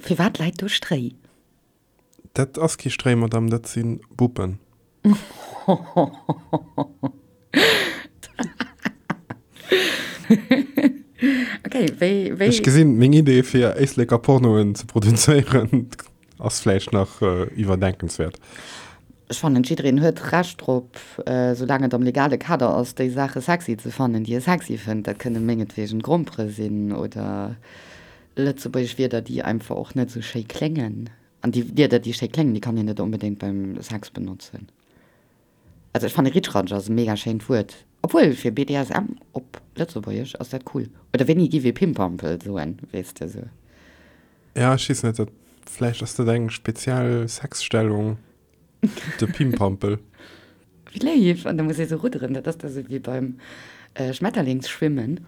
Firwat läit do Stréi? Dat ass kee Stréi, Madame, dat si Buppen. Okay, wéi, wéi. Ech gesinn, meng Idee fir Éisleker Pornoen ze produzéieren ass vläicht nach iwwerdenkenswäert. Ech fannen, jiddereen huet Recht drop, soulaang et am legale Kader ass, déi Saache sexy ze fannen, déi e sexy fënnt. Dat kënne mengetwegen Grompere sinn oder lëtzebuergesch Wierder, déi einfach och net esou schéi kléngen. An déi Wierder, déi schéi kléngen, déi kann een net onbedéngt beim Sex benotzen. Also ech fanne Ritschratsch ass e mega schéint Wuert. Obwuel, fir BDSM op Lëtzebuergesch ass dat cool. Oder wéini giff ee Pimpampel soen, weess de sou. Ja, ech weess net, dat vläicht ass dat eng speziell Sexstellung, de Pimpampel. Wéi léif! An da muss ee sou rudderen, dat ass da sou wéi beim Schmetterlingsschwimmen.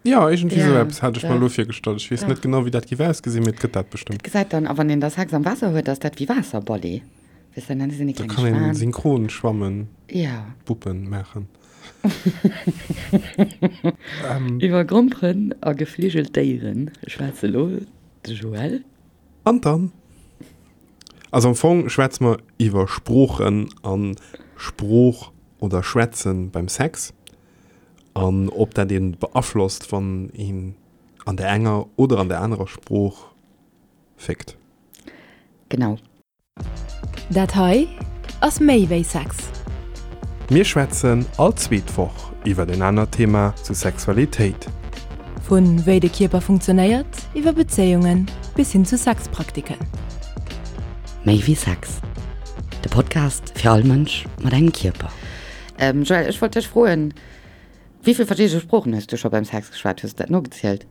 Jo, iergendwéi sou eppes hat ech mer elo virgestallt. Ech weess net genau, wéi dat géif ausgesinn, mee et gëtt dat bestëmmt. Dat gesäit dann, a wann een da Sex am Waasser huet, ass dat wéi Waasserballet. Weess de, dann sinn déi Da kleng kann een Schwan. Synchronschwammen, Ja. Buppen maachen. Iwwer Gromperen a gefligelt Déiere schwätze lo de Joël. An dann? Also am Fong schwätze mer iwwer Sproochen an Sprooch oder Schwätzen beim Sex. An ob dat een beaflosst, wann een an der enger oder an der anerer Sprooch fickt. Genau. Dat hei ass méi wéi Sex. Mir schwätzen all zweet Woch iwwer en anert Thema zu Sexualitéit. Vu wéi de Kierper funktionéiert, iwwer Bezéiungen bis hin zu Sexpraktiken. Méi wéi Sex, de Podcast fir all Mënsch mat engem Kierper. Joël, ech wollt dech froen, wéi vill verschidde Sproochen hues du scho beim Sex geschwat? Hues de dat nogezielt?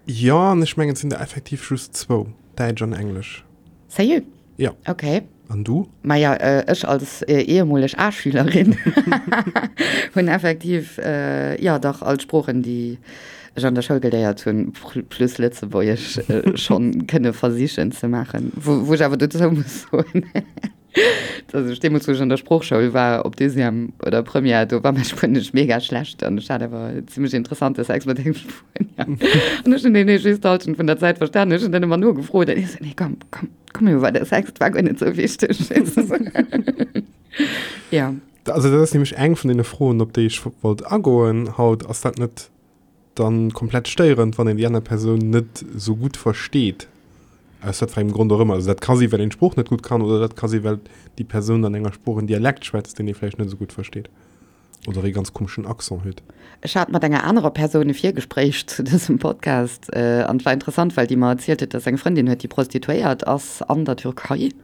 Jo, an ech mengen et sinn der effektiv just zwou, Däitsch an Englesch. Sérieux? Jo. Ok. An du? Maja, ech als ehemoleg A-Schülerin hunn effektiv, jo dach, all d'Sproochen, déi ech an der Schoul geléiert hunn, plus Lëtzebuergesch schonn kënne versichen ze maachen. Wou ech awer dozou muss soen, Dass ech deemools, wou ech an der Sproochschoul war, op Deuxième oder Première, do war mäi Spuenesch mega schlecht an ech hat awer zimmlech interessante Sex mat engem Spuenier. An ech hunn deen just d'Hallschent vun der Zäit verstanen. Ech hunn dann ëmmer nogefrot an hie sou, Nee, komm, komm, komm iwwer de Sex, et war guer net sou wichteg. Jo. Also dat ass nämlech eng vun deene Froen, op déi ech wollt agoen haut. Ass dat net dann komplett stéierend, wann een déi aner Persoun net esou gutt versteet, aus wat fir engem Grond och ëmmer. Also dat ka si well een d'Sprooch net gutt kann oder dat ka si well déi Persoun an enger Sprooch en Dialekt schwätzt, deen ee vläicht net esou gutt versteet oder ee ganz komeschen Accent huet. Ech hat mat enger anerer Persoun e Virgespréich zu dësem Podcast an et war interessant, well déi mer erzielt huet, dass se eng Frëndin huet, déi Prostituéiert ass an der Türkei.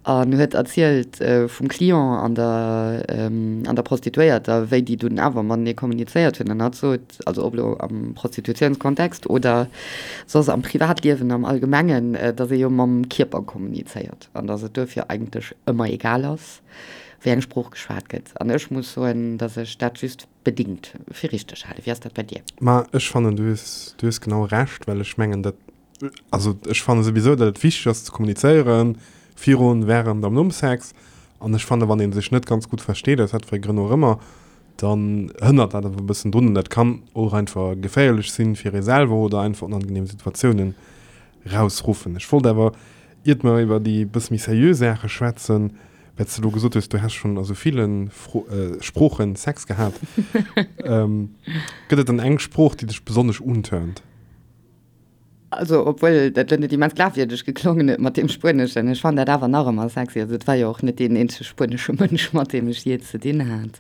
An huet erzielt vum Client an der an der Prostituéierter, wéi déi dunn awer matenee kommunizéiert hunn. An hatt sot, also ob elo am Prostitutiounskontext oder soss am Privatliewen am Allgemengen, datt ee jo mam Kierper kommunizéiert an datt et duerfir eigentlech ëmmer egal ass, wéi eng Sprooch geschwat gëtt. An ech muss soen, datt ech dat just bedingt fir richteg halen. Wéi ass dat bei dir? Ma ech fannen, du hues, du hues genau Recht, well ech mengen, dat Also ech fanne souwisou, datt et wichteg ass ze kommunizéieren, virun, wärend am nom Sex. An ech fanne wann ee sech net ganz gutt versteet, aus wat fir Grënn och ëmmer, dann hënnert dat awer e bëssen drun. An dat kann och einfach geféierlech sinn fir ee selwer oder einfach onangenehm Situatiounen rausruffen. Ech wollt awer, iert mer iwwer déi bësse méi seriö Saache schwätzen, well s de elo gesot hues, du häss schonn a sou ville Sproochen Sex gehat, gëtt et dann eng Sprooch, déi dech besonnesch unturnt? Also, obwuel dat elo net immens glafwierdeg geklongen huet mat deem Spueneschen, ech fannen dat awer nach ëmmer sexy. Also, et war jo och net deen eenzege spuenesche Mënsch, mat deem ech jee ze dinn hat.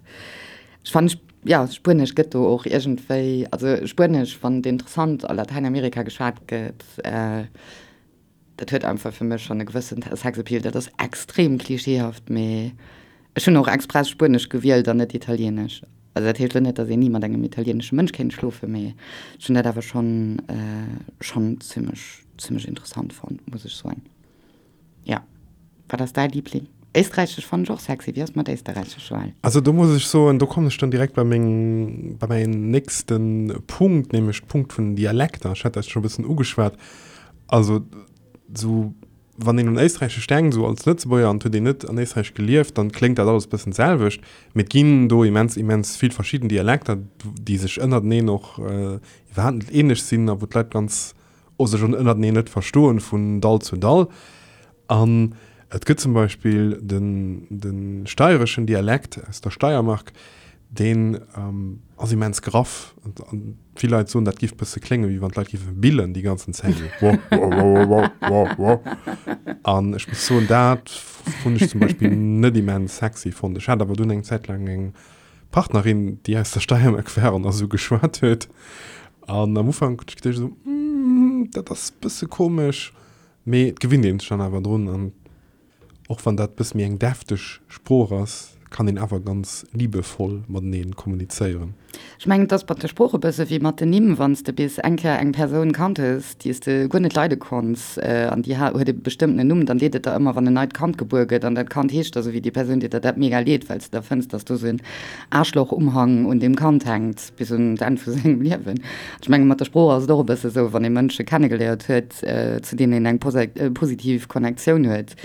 Ech fannen, jo, Spuenesch gëtt do och iergendwéi, also Spuenesch, wann et interessant a Latäinamerika geschwat gëtt, Dat huet einfach fir mech schonn e gewëssen Sexappeal. Dat ass extrem klischeehaft, mee ech hunn och express Spuenesch gewielt an net Italienesch. Also dat heescht elo net, datt een ni mat engem italienesche Mënsch kéint schlofen, mee ech hunn dat awer schonn schonn zimmlech zimmlech interessant fonnt, muss ech soen. Jo. Wat ass däi Liebling? Éisträichesch fannen ech och sexy. Wéi ass et mat Éisterräichesch, Joël? Also do muss ech soen, do kommen ech dann direkt bei meng, bei mäin nächste Punkt, nämlech Punkt vun den Dialekter. Ech hat dat scho e bëssen ugeschwat. Also sou wann een un Éisträichesch denkt, sou als Lëtzebuerger, an et huet een net an Éisträich gelieft, dann kléngt dat alles e bëssen d'selwecht. Mee et ginn do immens, immens vill verschidden Dialekter, déi sech ënnerteneen och iwwerhaapt net ähnlech sinn a wou d'Leit ganz. sech ënnerteneen net verstoen vun Dall zu Dall. An et gëtt zum Beispill den, de steireschen Dialekt aus der Steiermark, deen ass immens graff. An vill Leit soen, dat giff bësse kléngen, wéi wann d'Leit giffe billen déi ganzen Zäit. Wo, wo, wo, wo, wo, wo. An ech muss soen, dat hunn ech zum Beispill net immens sexy fonnt. Ech hat awer dunn eng Zäit laang eng Partnerin, déi aus der Steiermark war an esou geschwat huet. An am Ufank hunn ech geduecht esou, dat ass bësse komesch. Mee et gewinnt een sech dann awer drun an och wann dat bësse méi eng defteg Sprooch ass, kann een awer ganz liebevoll mateneen kommunizéieren. Ech mengen, et ass mat de Sprooche bësse wéi mat den Nimm, Wann s de bis eng Kéier eng Persoun kannt hues, déi s de guer net leide konns an déi huet e bestëmmtenen Numm, dann deet et der ëmmer, wann en neit Kand gebuer gëtt an dat Kand heescht da sou wéi déi Persoun, deet der dat mega leed, well s de da fënns, dass do sou en Aarschloch-Umhang un deem Kand hänkt bis un d'Enn vu sengem Liewen. Ech menge mat der Sprooch ass et och e bësse sou, wann ee Mënsche kennegeléiert huet, zu deenen een eng positiv Connectioun huet,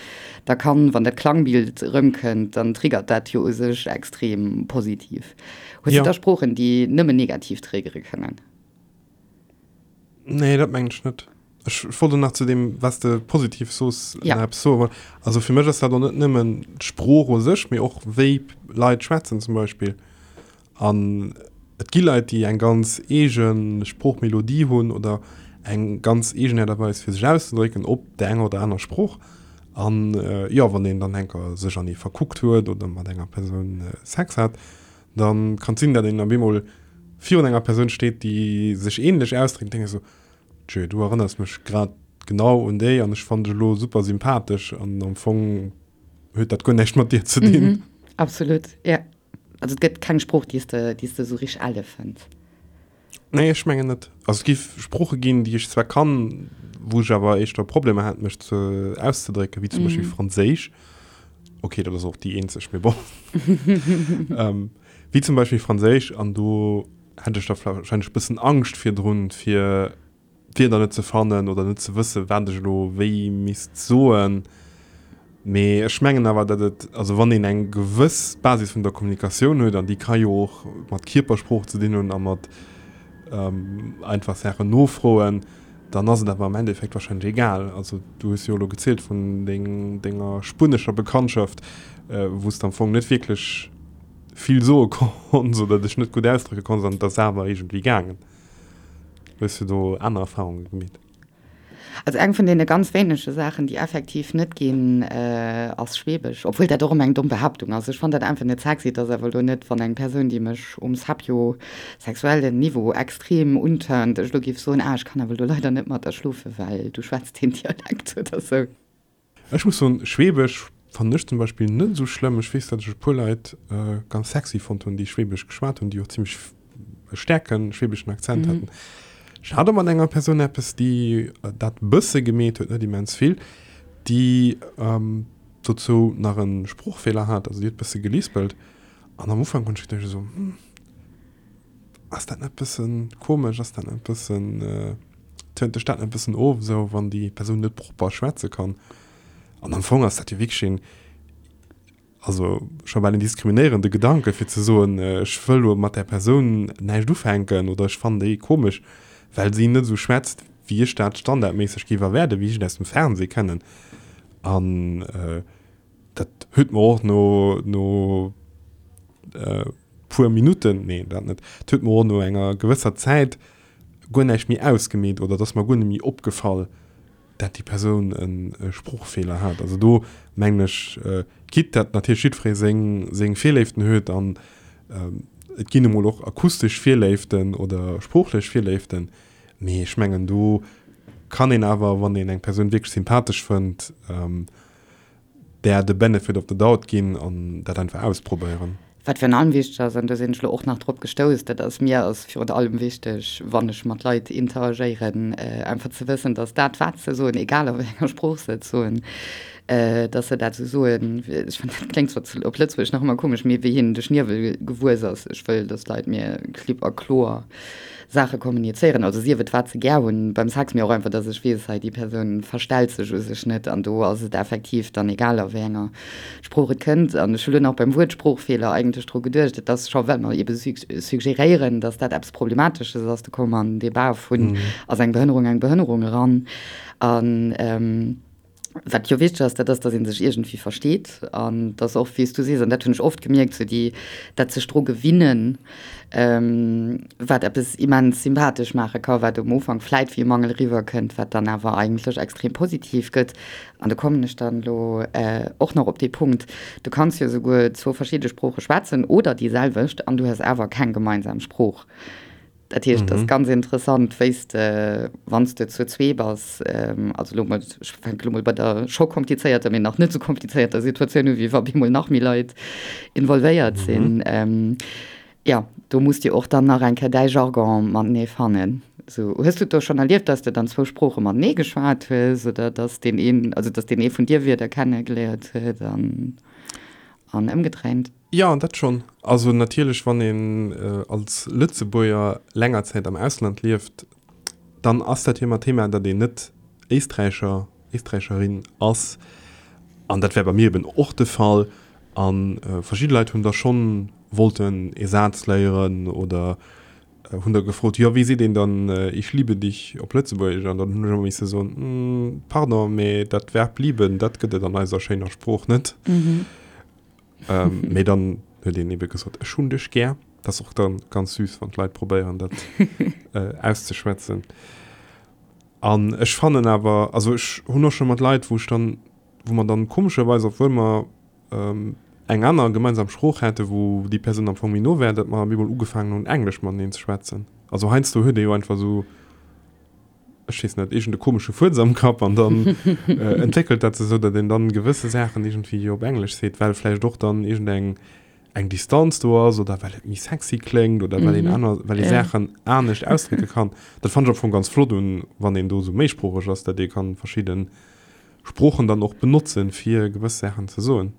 da kann, wann dat Klangbild erëmkënnt, dann triggert dat jo u sech extrem positiv. Hues du da Sproochen, déi nëmmen negativ triggere kënnen? Nee, dat mengen ech net. Ech wollt och nach zu deem, wat s de positiv soos, nach eppes soen. Also fir mech ass dat och net nëmmen d'Sprooch u sech, mee och wéi Leit schwätzen zum Beispill. An et gi Leit, déi eng ganz eege Sproochmelodie hunn oder eng ganz eegen Aart a Weis fir sech auszedrécken op där enger oder aner Sprooch. An jo, wann een dann enker sech an ee verkuckt huet oder mat enger Persoun Sex hat, da kann et sinn, datt een op eemol virun enger Persoun steet, déi sech änlech ausdréckt, an denkt esou, Tjö, du erënners mech grad genau un déi an ech fannen dech elo super sympathesch an am Fong huet dat guer näischt mat dir ze dinn. Absolut, jo. Also et gëtt keng Sprooch, déi s de, déi s de esou richteg elle fënns? Nee, ech mengen net. Also et gi Sprooche ginn, déi ech zwar kann, wou ech awer éischter Problemer hat, mech ze auszedrécken, wéi zum Beispill Franséisch. Okay, dat ass och déi eenzeg, mee bon. Wéi zum Beispill Franséisch, an do hätt ech da warscheinlech e bëssen Angscht virdrun, fir d'Wierder net ze fannen oder net ze wëssen, wat ech elo wéi misst soen. Mee ech mengen awer, datt et, also wann een eng gewëss Basis vun der Kommunikatioun huet, an déi ka jo och mat Kierpersprooch ze dinn hunn a mat einfach Saachen nofroen, dann ass et awer am Endeffekt wahrscheinlech egal. Also du hues jo elo gezielt vun denger spuenescher Bekanntschaft, wou s de am Fong net wierklech vill soe konns oder dech net gutt ausdrécke konns an et ass awer iergendwéi gaangen. Hues du do aner Erfahrunge gemeet? Also eng vun deene ganz wéinege Saachen, déi effektiv net ginn, ass Schwebesch. Obwuel dat och ëmmer eng domm Behaaptung ass. Ech fannen dat einfach net sexy. Et ass awer elo net, wann eng Persoun, déi mech um sapiosexuellen Niveau extrem unturnt, ech elo géif soen, ah, ech kann awer elo leider net mat der schlofen, well du schwätz deen Dialekt oder sou. Ech muss soen, Schwebesch fannen ech zum Beispill net esou schlëmm. Ech weess, datt ech e puer Leit ganz sexy fonnt hunn, déi Schwebesch geschwat hunn, déi och zimmlech e staarke schwebeschen Akzent haten. Ech hat och mat enger Persoun eppes, déi dat bësse gemeet huet, net immens vill, déi dozou nach e Sproochfeeler hat, also déi huet bësse gelispelt. An am Ufank hunn ech geduecht esou, hm, Ass dat net bëssen komesch? Ass dat net bëssen, tönt dech dat net bëssen of, esou wann déi Persoun net propper schwätze kann? An am Fong ass dat jo wierklech een, also scho bal en diskriminéierende Gedanke fir ze soen, ech wëll elo mat där Persoun näischt ufänken oder ech fannen déi komesch, well si net esou schwätzt, wéi ech dat standardméisseg géif erwaarden, wéi ech et aus dem Fernseh kennen. An dat huet mer och no, no puer Minutten, nee dat net, et huet mer och no enger gewësser Zäit guer näischt méi ausgemeet oder et ass mer guer net méi opgefall, dat déi Persoun e Sproochfeeler hat. Also do mengen ech, quitte dat natierlech jiddweree seng, seng Virléiften huet an et ginn emol och akustesch Virléiften oder sproochlech Virléiften, mee ech mengen do kann een awer, wann een eng Persoun wierklech sympathesch fënnt, där de Benefit of the doubt ginn an dat einfach ausprobéieren. Wat virun allem wichteg ass, an do sinn ech elo och nach drop gestouss, dat ass, mir ass virun allem wichteg, wann ech mat Leit interagéieren, einfach ze wëssen, dass dat, wat se soen, egal a wéi enger Sprooch se et soen, Dass se dat esou soen, ech fannen, dat kléngt zwar op Lëtzebuergesch nach ëmmer komesch, mee wéi hinnen de Schniewel gewuess ass. Ech wëll, dass d'Leit mir klipp a kloer Saache kommunizéieren, also sief et wat se gär hunn beim Sex, mee och einfach, dass ech weess, hei déi Persoun verstellt sech u sech net an do ass et effektiv dann egal a wéi enger Sprooch et kënnt. An ech hu lo nach beim Wuert Sproochfeeler eigentlech dru geduecht, et ass scho, well mer ebe suggeréieren, dass dat eppes Problematesches ass, do komme mer an den Debat vun, ass eng Behënnerung eng Behënnerung eran. An. Wat jo wichteg ass, dat ass, datt ee sech iergendwéi versteet an datt och, wéi s du sees, an dat hunn ech oft gemierkt, sou déi, dat sech dru gewinnen, wat eppes immens sympathesch maache ka, wat um Ufank vläit wéi e Mangel eriwwerkënnt, wat dann awer eigentlech extrem positiv gëtt. An do kommen ech dann elo och nach op dee Punkt, Du kanns jo souguer zwou verschidde Sprooche schwätzen oder déi selwecht an du hues awer keng gemeinsam Sprooch. Dat heescht, et ass ganz interessant, wéi s de, wann s de zu zwee bass, also elo mol, ech fänke elo mol bei der scho komplizéierter, mee nach net esou komplizéierter Situatioun u wéi wa bemol nach méi Leit involvéiert sinn, jo, do muss de och dann nach eng Kéier däi Jargon matenee fannen. Esou, hues du et do schonn erlieft, dass de dann zwou Sprooche matenee geschwat hues oder dass deen een, also dass deen ee vun dir Wierder kennegeléiert huet an an ëmgedréint? Jo, dat schonn. Also natierlech, wann een als Lëtzebuerger länger Zäit am Ausland lieft, dann ass dat jo ëmmer Thema, datt een net Éisträicher, Éisträicherin ass. An dat war bei mir eben och de Fall. A verschidde Leit hunn da schonn wollten ee Saz léieren oder hunn da gefrot, jo wéi seet een dann Ich liebe dich op Lëtzebuergesch? An dann hunn ech ëmmer misse soen, Pardon, mee dat Verb lieben, dat gëtt et an eiser schéiner Sprooch net. Mee dann huet een ebe gesot, Ech hunn dech gär. Dat ass och dann ganz süß, wann d'Leit probéieren, dat auszeschwätzen. An ech fannen awer, also ech hunn och scho mat Leit, wou ech dann, wou mer dann komescherweis, obwuel mer eng aner gemeinsam Sprooch hätten, wou déi Persoun am Fong méi no wär, datt mer op eemol ugefaangen hunn, Englesch mateneen ze schwätzen. Also heiansdo huet ee jo einfach esou, ech weess net, iergend e komesche Fuerz am Kapp an dann entwéckelt dat sech esou, datt een dann gewësse Saachen iergendwéi op Englesch seet, well vläicht och dann iergendeng eng Distanz do ass oder well et méi sexy kléngt oder well een aner, well ee Saachen anescht ausdrécke kann. Dat fannen ech am Fong ganz flott un, wann een do esou méisproocheg ass, datt ee kann verschidden Sproochen dann och benotzen, fir gewëss Saachen ze soen.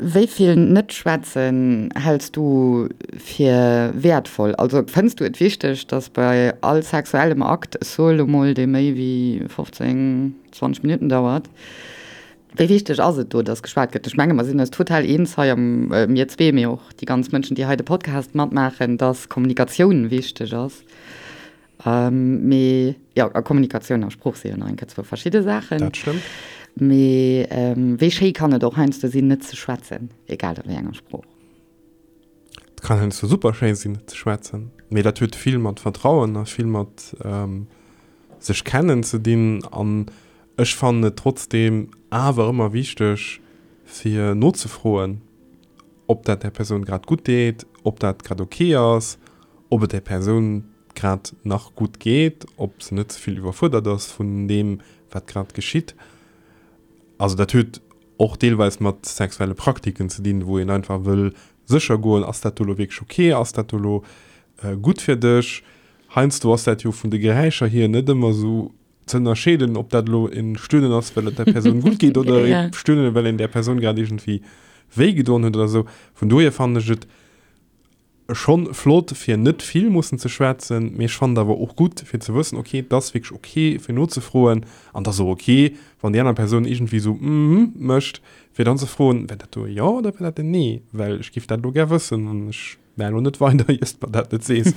Wéi vill Net-Schwätzen häls du fir wäertvoll? Also fënns du et wichteg, datt bei all sexuellem Akt, ech soe lo mol, dee méi wéi 15, 20 Minutten dauert, wéi wichteg ass et do, datt geschwat gëtt? Ech menge mer sinn eis total eens hei am, mir zwee, mee och déi ganz Mënschen, déi hei de Podcast matmaachen, datt Kommunikatioun wichteg ass. Mee jo, a Kommunikatioun a Sprooch si jo nach eng Kéier zwou verschidde Saachen. Dat stëmmt. Mee wéi schéi kann et och heiansdo sinn, net ze schwätzen, egal a wéi enger Sprooch. Et kann heiansdo super schéi sinn, net ze schwätzen. Mee dat huet vill mat Vertrauen a vill mat sech kennen ze dinn. An ech fannen et trotzdeem awer ëmmer wichteg, fir nozefroen, ob dat där Persoun grad gutt deet, ob dat grad ok ass, ob et där Persoun grad nach gutt geet, ob se net ze vill iwwerfuerdert ass vun deem, wat grad geschitt. Also dat huet och deelweis mat sexuelle Praktiken ze dinn, wou een einfach wëll sécher goen, ass dat do elo wierklech ok, ass dat do elo gutt fir dech? Heiansdo ass dat jo vun de Geräischer hier net ëmmer esou ze ënnerscheeden, ob dat elo e Stöhnen ass, well et der Persoun gutt geet oder e Stöhnen, well een där Persoun grad iergendwéi wéi gedoen huet oder esou. Vun dohier fannen ech et schonn flott, fir net vill mussen ze schwätzen, mee ech fannen et awer och gutt, fir ze wëssen, ok, et ass wierklech ok, fir nozefroen an et ass och ok, wann déi aner Persoun iergendwéi esou mhm mécht, fir dann ze froen, War dat do e Jo oder war dat en Nee? Well ech géif dat elo gär wëssen an ech Mä elo net weider, iers de mer dat net sees.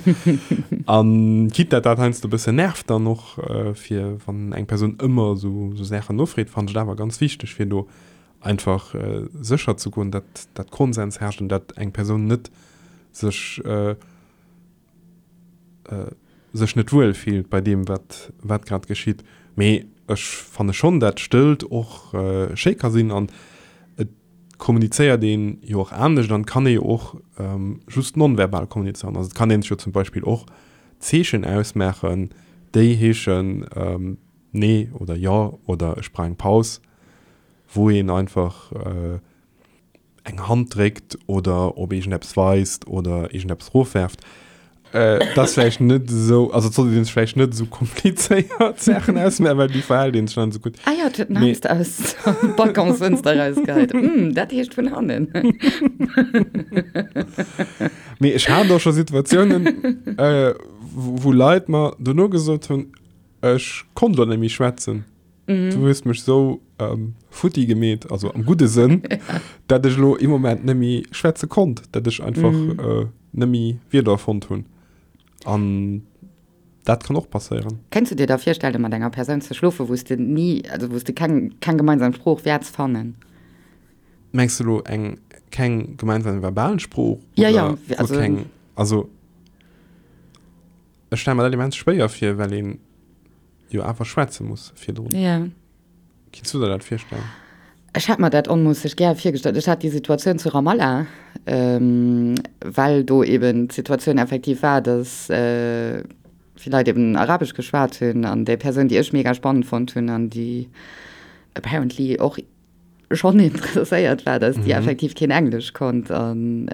An quitte dat dat heiansdo e bëssen nervt dann och, fir wann eng Persoun ëmmer esou esou Saachen nofreet, fannen ech et awer ganz wichteg, fir do einfach sécher ze goen, dat dat Konsens herrscht an dat eng Persoun net sech sech net wuel fillt bei deem, wat wat grad geschitt. Mee ech fanne schonn, dat Stëllt och schéi ka sinn an et kommunizéiert een jo och anescht an et kann ee jo och just nonverbal kommunizéieren. Also et kann een sech jo zum Beispill och Zeechen ausmaachen, déi heeschen Nee oder Jo oder ech brauch eng Paus, wou een einfach eng Hand dréckt oder op iergendeppes weist oder iergendeppes erofwerft. Dat ass vläicht net esou, also et sollt een sech vläicht net esou komplizéiert Saachen ausmaachen, well déi verhält een sech dann esou gutt. Ah jo, et huet den Hamster aus der Balconsfënster erausgeheit. Hm, dat heescht vun hannen. Mee ech hat och scho Situatiounen, wou Leit mer dono gesot hunn, ech konnt elo net méi schwätzen. Du hues mech sou futti gemeet, also am gudde Sënn, dat ech elo ee Moment net méi schwätze konnt, dat ech einfach net méi Wierder fonnt hunn. An dat kann och passéieren. Kéints du dir da virstellen, mat enger Persoun ze schlofen, wou s de ni, also wou s de keng, keng gemeinsam Sprooch wäerts fannen? Mengs du elo eng keng gemeinsam verbal Sprooch? Ja, ja, oder also keng, also ech stelle mer dat immens schwéier vir, well een jo awer schwätze muss virdrun. Ja. Kinns du der dat virstellen? Ech hätt mer dat onmoosseg gär virgestallt. Ech hat déi Situatioun zu Ramallah, well do eben d'Situatioun effektiv war, dass vill Leit eben Arabesch geschwat hunn an déi Persoun, déi ech mega spannend fonnt hunn an déi apparently och schonn interesséiert war, dass déi effektiv keen Englesch konnt an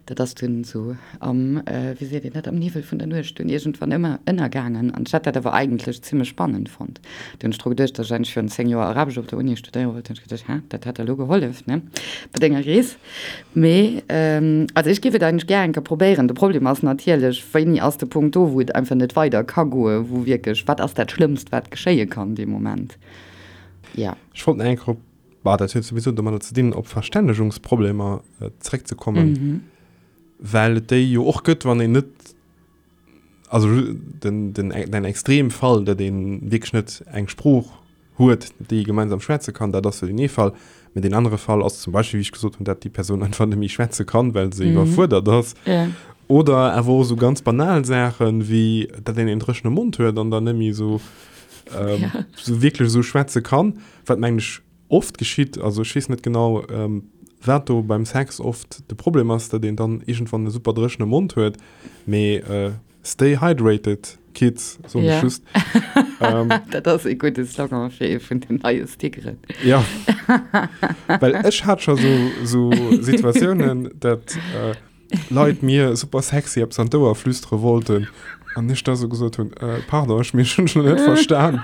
dat ass dunn esou am, wéi seet een dat, am Niwwel vun der Nuecht dunn iergendwann ëmmer ënnergaangen an ech hat dat awer eigentlech zimmlech spannend fonnt. Du hunn ech dru geduecht, dass ech eigentlech virun 10 Joer Arabesch op der Uni studéiere wollt, hunn ech geduecht, hä, dat hätt der elo gehollef, ne, bei denger Rees. Mee also ech géif et eigentlech gär eng Kéier probéieren. De Problem ass natierlech, wéini ass de Punkt do, wou et einfach net weider ka goen, wou wierklech, wat ass dat Schlëmmst, wat geschéie kann dee Moment? Ja. Ech wollt nach eng Kéier op, bah, dat huet souwisou domadder ze dinn, op Verstännegungsproblemer zeréckzekommen, well et déi jo och gëtt, wann een net, also den, den, den Extremfall, datt ee wierklech net eng Sprooch huet, déi ee gemeinsam schwätze kann, dat ass jo deen ee Fall. Mä deen anere Fall ass zum Beispill, wéi ech gesot hunn, datt déi Persoun einfach net méi schwätze kann, well se iwwerfuerdert ass. Oder awer och esou ganz banal Saachen, wéi datt een een dréchene Mond huet an dann net méi esou ähm, ja. so wierklech esou schwätze kann, wat mengen ech oft geschitt, also ech weess net genau, ähm, wat do beim Sex oft de Problem ass, datt een dann iergendwann e super dréchene Mond huet, mee äh, stay hydrated, Kids, soen ech ja. just. ähm, dat ass e gudde Slogan fir ee vun den neie Stickeren. Ja, well ech hat scho so, so Situatiounen, dat äh, Leit mir super sexy eppes an d'Ouer flüstere wollten an ech da sou gesot hunn, äh, pardon, ech mir hunn schon net verstan.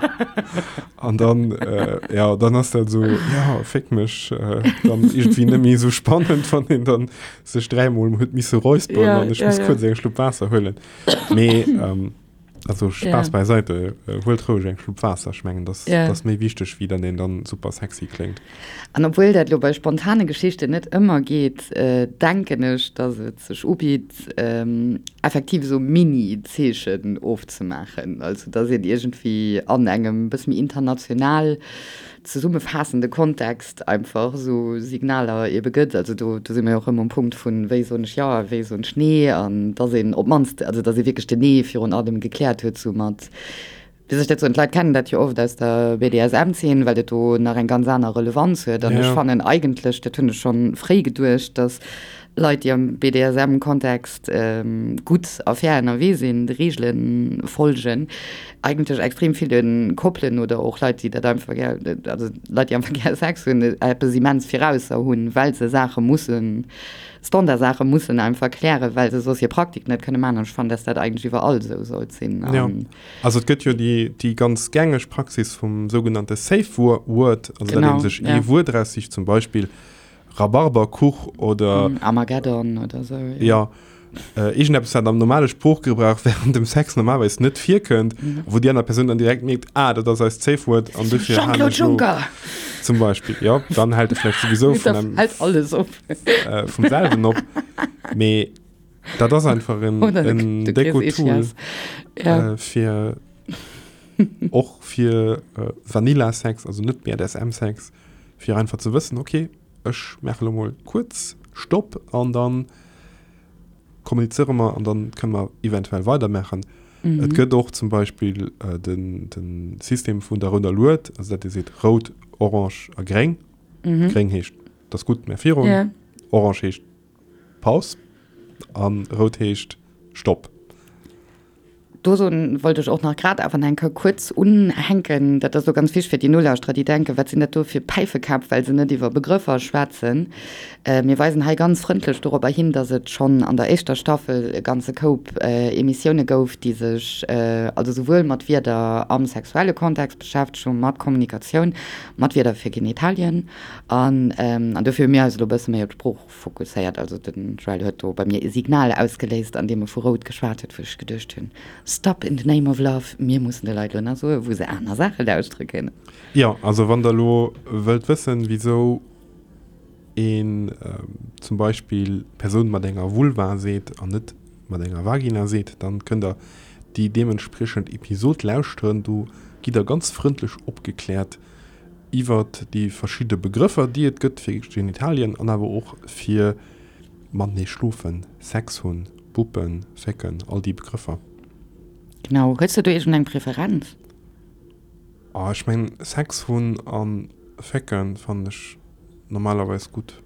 An dann, äh, ja, dann ass dat so, ja, fick mech, äh, dann irgendwie net méi sou spannend, wann een dann sech dräimol huet misse räusperen Ja, an ech ja, muss ja. kuerz eng Schlupp Waasser huelen. Mee, ähm, also Spaass Ja. beiseite, äh, huelt roueg eng Schlupp Waasser, ech mengen, das, Ja. das méi wichteg, wéi dann een dann super sexy kléngt. An obwuel dat elo bei spontane Geschichten net ëmmer geet, denken ech, dass et sech ubitt, effektiv esou Mini-Zeechen ofzemaachen. Also dass een iergendwéi an engem bësse méi international zesummefaassende Kontext einfach esou Signaler ebe gëtt. Also do do si mer jo och erëm um Punkt vun, wéi soen ech jo a wéi soen ech nee? An dass een op d'mannst, also dass ee wierklech den Nee virun allem gekläert huet, soumat Wéi soll ech dat soen, d'Leit kennen dat jo oft aus der BDSM-Zeen, well dat do nach eng ganz aner Relevanz huet. An ech fannen eigentlech, dat hunn ech schonn fréi geduecht, datt Leit, déi am BDSM-Kontext gutt a fair ënnerwee sinn, de Reegele folgen, eigentlech extrem ville Koppelen oder och Leit, déi dat einfach gär, also Leit, déi einfach gär Sex hunn, eppes immens virausser hunn, well se Saache mussen, Standardsaache mussen einfach klären, well se soss hir Praktik net kënne maachen. An ech fannen, datt dat eigentlech iwwerall esou sollt sinn. Also et gëtt jo déi, déi ganz gängeg Praxis vum sougenannte Safe Word, also datt ee sech ee Wuert eraussicht, zum Beispill Rhabarberkuch oder. Armageddon oder esou, jo. Jo, iergendeppes, wat am normale Sproochgebrauch wärend dem Sex normalerweis net virkënnt, wou déi aner Persoun dann direkt mierkt, ah, dat ass eist Safe Word an dofir halen Jean-Claude ech elo. Juncker! Zum Beispill, jo, dann hält e vläicht souwisou vun Da hält alles op. vum selwen op. Mee. Dat ass einfach en, Oder de, en de Chris Deko-Tool Ischias. Ja. äh, fir och fir äh, Vanilla-Sex, also net BDSM-Sex, fir einfach ze wëssen, okay, ech maache lo mol kuerz Stopp an dann kommunizéiere mer an dann kënne mer eventuell weidermaachen. Mhm. Et gëtt och zum Beispill äh, den, den System vun der rouder Lued, also dat Dir seet rout, orange a gréng. Mhm. Gréng heescht, dat ass gutt, mä virun. Ja. Orange heescht Paus an rout heescht Stopp. Dozou wollt ech och nach grad awer eng Kéier kuerz unhänken, dat ass elo ganz wichteg fir déi Nolauschterer, déi denken, wat sinn dat do fir Päifekäpp, well se net iwwer Begrëffer schwätzen. Mir weisen hei ganz frëndlech dorobber hin, dass et schonn an der éischter Staffel e ganze Koup Emissioune gouf, déi sech also souwuel mat Wierder am sexuelle Kontext beschäftegt hunn, mat Kommunikatioun, mat Wierder fir Genitalien an dofir hu mir eis elo e bësse méi op d'Sprooch Fokusséiert. Also den Joël huet do bei mir e Signal ausgeléist, an deem e vu rout geschwat huet, wou ech geduecht hunn, Stop in the name of love, mir mussen de Leit elo nach soen, wou se aner Saache lauschtere kënnen. Jo, also wann der elo wëllt wëssen, wisou een zum Beispill Persoun mat enger Vulva seet an net mat enger Vagina seet, dann kënnt der déi deementspriechend Episod lauschteren. Do gitt der ganz frëndlech opgekläert, iwwert déi verschidde Begrëffer, déi et gëtt fir Genitalien an awer och fir matenee schlofen, Sex hunn, Buppen, Fécken, all déi Begrëffer. Genau. Hues de do iergend eng Preferenz? Oh, ech mengen Sex hunn a Fécken fannen ech normalerweis gutt.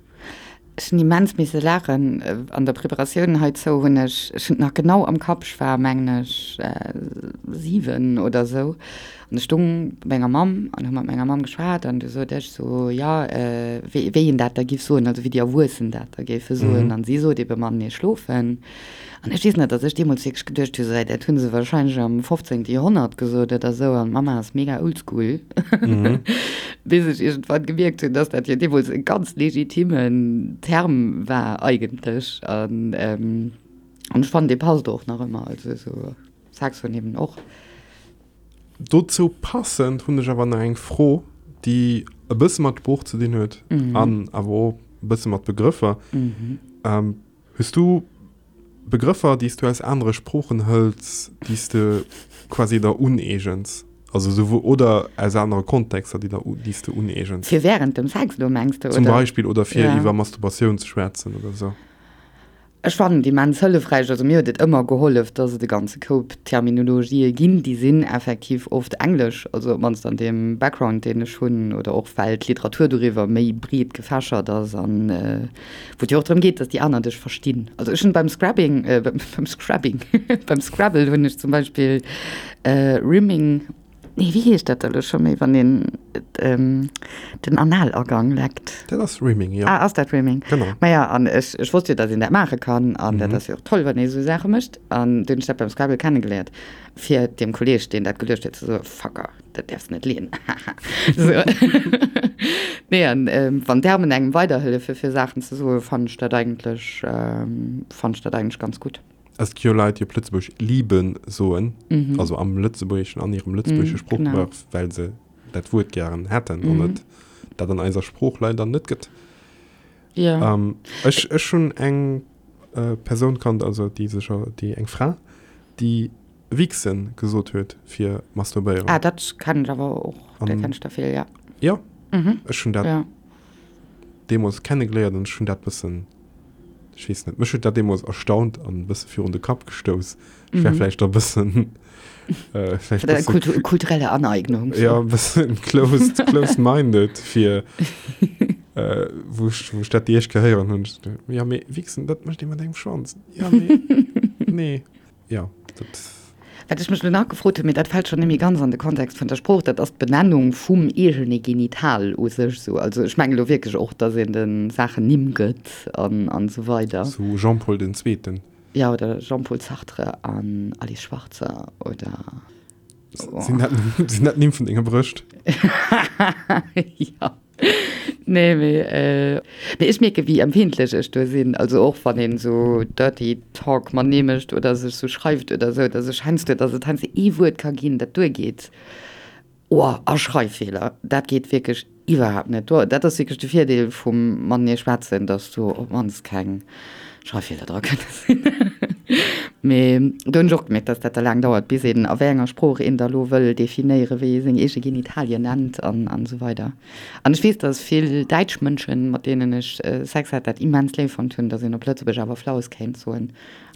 Ech hunn immens misse laachen. An der Preparatioun heizou hunn ech, ech hunn et nach genau am Kapp, ech war mengen ech 7 oder esou an ech stung bei menger Mamm an hu mat menger Mamm geschwat an du sot ech sou, jo wéi wéi een dat da giff soen, also wéi déi Erwuessen dat da géife soen an si sot ebe matenee schlofen. An ech weess nach, datt ech deemools wierklech geduecht hu, sou, dat hu se wahrscheinlech am 15. Joerhonnert gesot oder esou, an d'Mamma ass mega oldschool, bis ech iergendwann gemierkt hunn, datt dat jo deemools e ganz legitimen Term war eigentlech. An ech fannen, dee passt och nach ëmmer, also esou Sex hunn eben och. Dozou passend hunn ech awer nach eng Fro, déi e bësse mat Sprooch ze dinn huet an awer och e bësse mat Begrëffer. Hues du Begrëffer, déi s du aus anere Sproochen hëls, déi s de quasi der uneegens? Also souwuel, oder aus anere Kontexter, déi der, déi s de uneegens? Fir wärend dem Sex elo, mengs de, oder? Zum Beispill, oder fir iwwer Masturbatioun ze schwätzen oder esou. Ech fannen et immens hëllefräich, also mir huet et ëmmer gehollef, dass et e ganze Koup Terminologië ginn, déi sinn effektiv oft englesch, also op d'mannst an deem Background, deen ech hunn, oder och well d'Literatur doriwwer méi breet gefächert ass an Wou et jo och drëm geet, dass déi aner dech verstinn. Also ech hunn beim Scrabbing, äh, beim Scrabbing, beim Scrabble hunn ech zum Beispill äh, Rimming, nee, wéi heescht dat da lo scho méi, wann een ähm, den Analagang leckt? Dat ass Rimming, jo. Ah, ass dat Rimming? Genau. Maja, an ech, ech wosst jo, dass een dat maache kann an dat ass jo och toll, wann ee sou Saache mécht. An dunn hunn ech dat beim Scrabble kennegeléiert, fir deem Kolleeg, deen dat geluecht huet, ze soen, Fucker. Dat däerfs net leeën. So. Nee, an ähm, wann Termen engem weiderhëllefe fir Saachen ze soen, fannen ech dat eigentlech, ähm, fannen ech dat eigentlech ganz gutt. Es gi jo Leit, déi op Lëtzebuergesch liben soen, mhm. also am Lëtzebuergeschen, an hirem lëtzebuergesche mhm, Sproochgebrauch, well se dat Wuert gären hätten mhm. an et dat an eiser Sprooch leider net gëtt. Ja. Ähm, ech, ech hunn eng äh, Persoun kannt, also déi sech, déi eng Fra, déi Wichsen gesot huet fir masturbéieren. Ah, dat kennen ech awer och, dat kennen ech der vill, ja. Jo, ech hunn dat deemools kennegeléiert an ech hunn dat bëssen, ech weess net, mech huet dat deemools erstaunt an e bësse virun de Kapp gestouss. Ech war vläicht e bëssen, vläicht e bësse. Kulturelle Aneignung. Jo, e bëssen closed, closed-minded fir, wou ech, wou ech dat déi éischt Kéier héieren hunn. Jo, mee Wichsen, dat mécht ee mat engem Schwanz. Jo, mee, nee. Jo, dat. Wat ech mech elo nach gefrot hunn, mee dat fält schonn net méi ganz an de Kontext vun der Sprooch, dat ass d'Benennung vum eegene Genital u sech esou. Also ech mengen elo wierklech och, datt een de Saachen Nimm gëtt an an esou weider. Sou Jean-Paul den Zweeten. Jo, oder Jean-Paul Sartre an Alice Schwarzer oder. Sinn dat, sinn dat Nimm vun denge Brëscht? Jo. Nee, mee, äh, mee ech mierke wéi empfindlech ech do sinn. Also och wann een esou Dirty Talk matenee mécht oder sech sou schreift oder sou, dass ech heiansdo, dass et heiansdo ee Wuert ka ginn, dat duergeet. Oh, a Schreiffeeler, dat geet wierklech iwwerhaapt net. Do, dat ass wierklech de Virdeel vum matenee schwätzen, dass do op d'mannst keng Schreiffeeler dra kënne sinn. Mee do hunn ech och gemierkt, dass dat da laang dauert, bis een a wéi enger Sprooch een da lo wëll definéieren, wéi ee seng eege Genitalien nennt an an esou weider. An ech weess, dass vill däitsch Mënschen, mat deenen ech Sex hat, dat immens léif fonnt hunn, dass een op Lëtzebuerg awer Flaus kéint soen.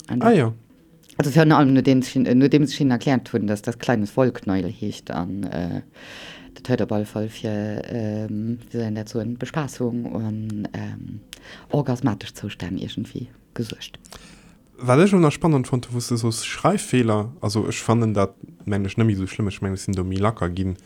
Ah jo. Also virun allem nodeems ech nodeems ech hinnen erkläert hunn, dass das kleines Wollknäuel heescht an dat huet op alle Fall fir, wéi soll een dat soen, Bespaßung an orgasmatesch Zoustänn iergendwéi gesuergt. Wat ech elo nach spannend fonnt hu wou s de soos Schreiffeeler, also ech fannen dat mengen ech net méi esou schlëmm, ech mengen ech sinn do méi lacker ginn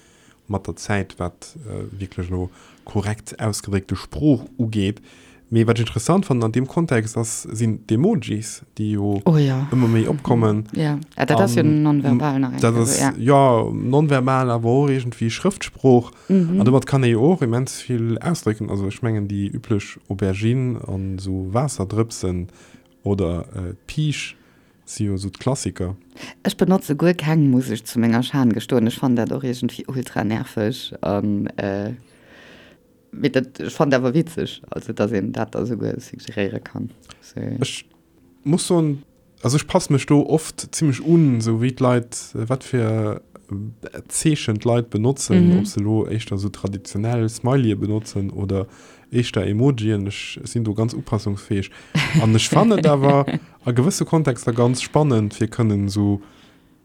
mat der Zäit wat wierklech elo korrekt ausgedréckte Sprooch ugeet. Mee wat ech interessant fannen an deem Kontext ass, sinn d'Emojis, déi jo Oh ja. ëmmer méi opkommen. Ja, ah, dat ass jo nonverbal nach eng Dat Kéier, ass, ja. jo, nonverbal, awer och iergendwéi Schrëftsprooch. Mhm. An domat kann ee jo och immens vill ausdrécken. Also ech mengen déi üblech Aubergine an esou Waasserdrëpsen oder d'Piisch si jo esou d'Klassiker. Ech benotze guer keng, muss ech zu menger Schan gestoen. Ech fannen dat och iergendwéi ultra nerveg an mee dat, ech fannen dat awer witzeg, also dass een dat da souguer suggeréiere kann. Ech muss soen, also ech passe mech do oft zimmlech un, esou wéi d'Leit, wat fir Zeechen d'Leit benotzen, ob se elo éischter esou traditionell Smileye benotzen oder éischter Emojien. Ech sinn do ganz upassungsfäeg an ech fannen et awer a gewësse Kontexter ganz spannend, fir kënnen esou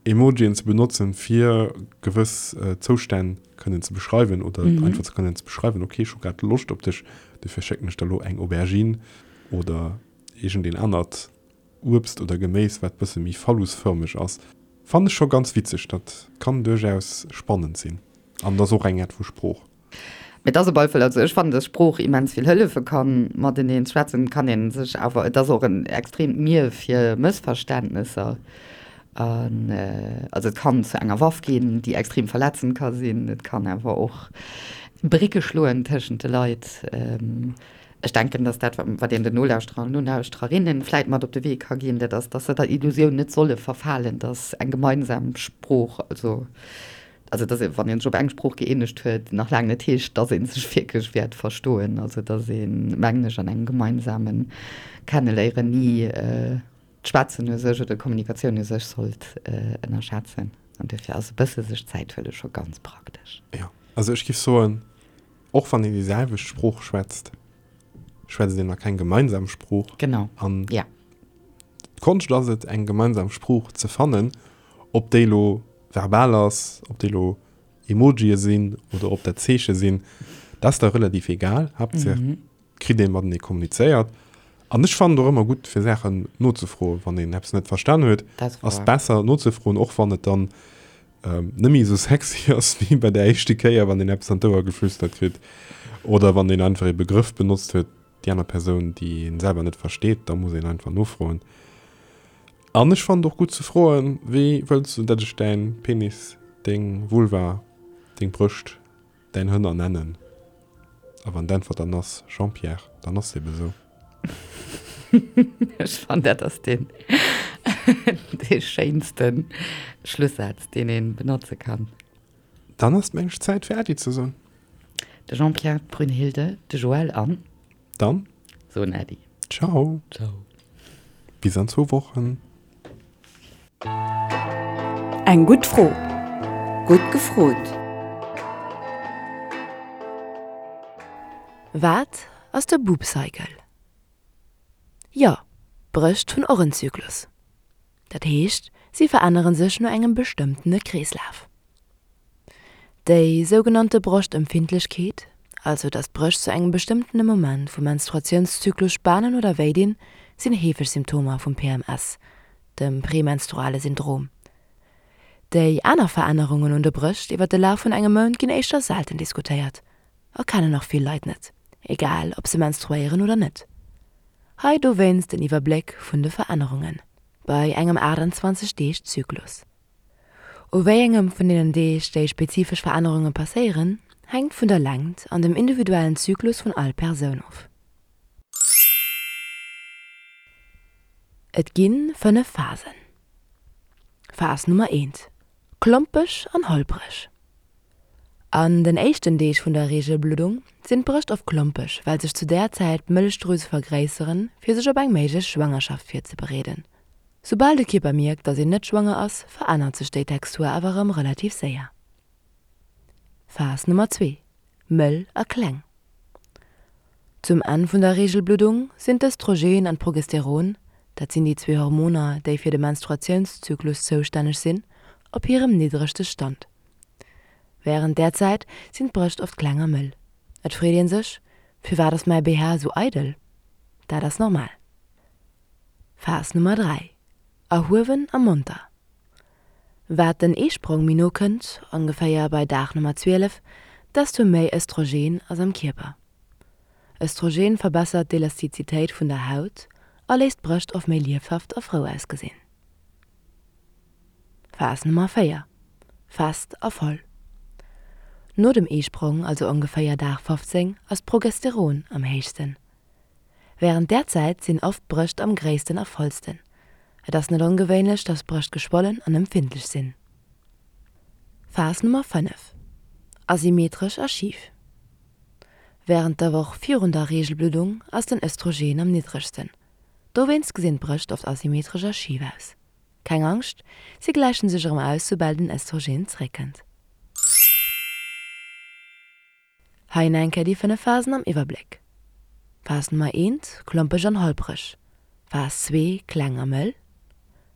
Emojien ze benotzen, fir gewëss Zoustänn kënnen ze beschreiwen oder einfach ze kënnen ze beschreiwen, okay, ech hu grad Loscht op dech, dofir schécken ech der elo eng Aubergine oder iergendeen anert Uebst oder Geméis, wat bësse méi phallusfërmeg ass. Fannen ech scho ganz witzeg, dat kann duerchaus spannend sinn an ass och eng Aart vu Sprooch. Mee et ass op alle Fall, also ech fannen, dass Sprooch immens vill hëllefe kann. Mateneen schwätzen kann ee sech awer, et ass och en extreemt Mier fir Mëssverständnesser. An also et kann zu enger Waff ginn, déi extrem verletzend ka sinn. Et kann awer och Brécke schloen tëschent de Leit. Ech denken, dass dat, wat een den Nolauschterer an Nolauschtererinnen vläit mat op de Wee ka ginn, dat ass, dass se der Illusioun net solle verfalen, dass eng gemeinsam Sprooch, also Also dass ee, wann ee sech op eng Sprooch gëeenegt huet, nach laang net heescht, dass ee sech wierklech wäert verstoen. Also dass ee, mengen ech, an engem gemeinsame Kenneléieren ni d'Schwätzen u sech oder d'Kommunikatioun u sech sollt ënnerschätzen. An duerfir ass e bësse sech Zäit huele scho ganz praktesch. Jo, also ech géif soen, och wann een déi selwecht Sprooch schwätzt, schwätzt een nach keng gemeinsam Sprooch. Genau, An ja. d'Konscht ass et, eng gemeinsam Sprooch ze fannen, ob déi elo verbal ass, ob déi elo Emojie sinn oder ob dat Zeeche sinn, dat ass da relativ egal. Haaptsaach et kritt ee matenee kommunizéiert. An ech fannen et och ëmmer gutt, fir Saachen nozefroen, wann een eppes net verstan huet, ass et besser nozefroen, och wann et dann net méi esou sexy ass wéi bei der éischte Kéier, wann een eppes an d'Ouer geflüstert kritt oder wann een einfach ee Begrëff benotzt huet, déi aner Persoun, déi een selwer net versteet, da muss een einfach nofroen. An ech fannen et och gutt ze froen, Wéi wëlls du, datt ech däin Penis, deng Vulva, deng Brëscht, däin Hënner nennen? A wann d'Äntwert dann ass Jean-Pierre, dann ass et ebe sou. Ech fannen, dat ass deen dee schéinste Schlussaz, deen ee benotze kann. Dann ass et mengen ech Zäit fir Äddi ze soen. De Jean-Pierre, d'Brünnhilde, de Joël an. Dann. Soen Äddi. Ciao. Ciao. Bis an zwou Wochen. Eng gutt Fro. Gutt gefrot. Wat ass de Boob Cycle? Jo, d'Brëscht hunn och en Zyklus. Dat heescht, si verännere sech no engem bestëmmtene Kreeslaf. Déi sougenannte Broschtempfindlechkeet, also datt d'Brëscht zu engem bestëmmtene Moment vum Menstruatiounszyklus spanen oder wéi dinn, sinn heefeg Symptomer vum PMS, dem premenstruale Syndrom. Déi aner Verännerungen un de Brëscht iwwer de Laf vun engem Mount ginn éischter selten diskutéiert a kennen och vill Leit net, egal ob se menstruéieren oder net. Hei dowéinst en Iwwerbléck vun de Verännerungen bei engem 28 Deeg Zyklus. U wéi engem vun deenen Deeg déi spezifesch Verännerunge passéieren, hänkt vun der Längt an dem individuellen Zyklus vun all Persoun of. Et gi 5 Phasen. Phas Nummer eent, Klompeg an holpreg. An den éischten Deeg vun der Reegelbluddung sinn d'Brëscht oft klompeg, well sech zu där Zäit d'Mëllechdrüse vergréisseren, fir sech op eng méiglech Schwangerschaft virzebereeden. Soubal de Kierper mierkt, dass een net schwanger ass, verännert sech déi Textur awer erëm relativ séier. Phas Nummer zwee, Mëll a kleng. Zum Enn vun der Reegelbluddung sinn d'Östrogen an d'Progesteron, dat sinn déi zwee Hormoner, déi fir de Menstruatiounszyklus zoustänneg sinn, op hirem niddregste Stand. Wärend där Zäit sinn d'Brëscht oft kleng a mëll. Et freet een sech, Firwat ass mäi BH esou eidel? Dat ass normal. Phas Nummer 3, Erhuewen a monter. Wat den Eesprong méi no kënnt, ongeféier bei Dag Nummer 12, desto méi Östrogen ass am Kierper. Östrogen verbessert d'Elastizitéit vun der Haut a léisst d'Brëscht oft méi liefhaft a frou ausgesinn. Phas Nummer 4, Fest a voll. No dem Eesprong, also ongeféier Dag 15, ass d'Progesteron am héichsten. Wärend där Zäit sinn oft d'Brëscht am gréissten a vollsten. Et ass net ongewéinlech, dass d'Brëscht geschwollen an empfindlech sinn. Phas Nummer 5, Asymmetresch a schif. Wärend der Woch virun der Reegelbluddung ass den Östrogen am niddregsten. Dowéinst gesinn d'Brëscht oft asymmetresch a schif aus. Keng Angscht, si gläichen sech erëm aus, soubal den Östrogen zeréckkënnt. Hei nach eng Kéier déi 5 Phasen am Iwwerbléck, Phas Nummer eent, klompeg an holpreg, Phas zwee, kleng a mëll,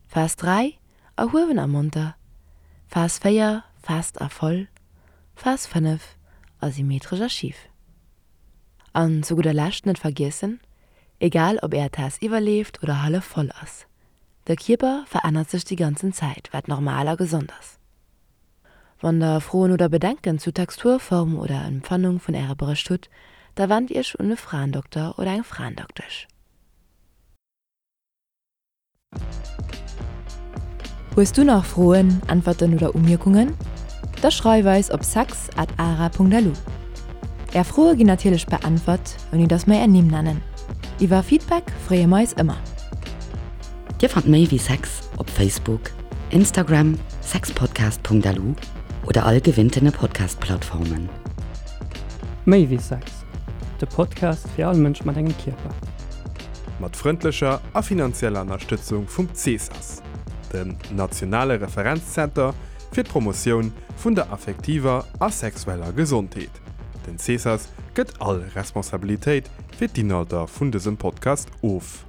Phas 3, erhuewen a monter, Phas 4, fest a voll, Phas 5, asymmetresch a schif. An zu gudder Lescht net vergiessen, Egal ob är Taass iwwerleeft oder hallef voll ass, de Kierper verännert sech déi ganzen Zäit, wat normal a gesond ass. Wann der Froen oder Bedenken zu Textur, Form oder Empfannung vun äre Brëscht hutt, da wennt iech un e Fraendokter oder eng Fraendoktesch. Hues du nach Froen, Äntwerten oder Umierkungen? Da schreif eis op sex at ara.lu. Är Froe ginn natierlech beäntwert, ouni dass mer är Nimm nennen. Iwwer Feedback freeë mer eis ëmmer. Dir fannt méi wéi Sex op Facebook, Instagram, sexpodcast.lu oder all gewinntene Podcast-Plattformen. Méi wéi Sex, de Podcast fir all Mënsch mat engem Kierper. Mat frëndlecher a finanzieller Ënnerstëtzung vum CESAS, dem nationale Referenzzenter fir d'Promotioun vun der affektiver a sexueller Gesondheet. Den CESAS gëtt all Responsabilitéit fir d'Inhalter vun dësem Podcast of.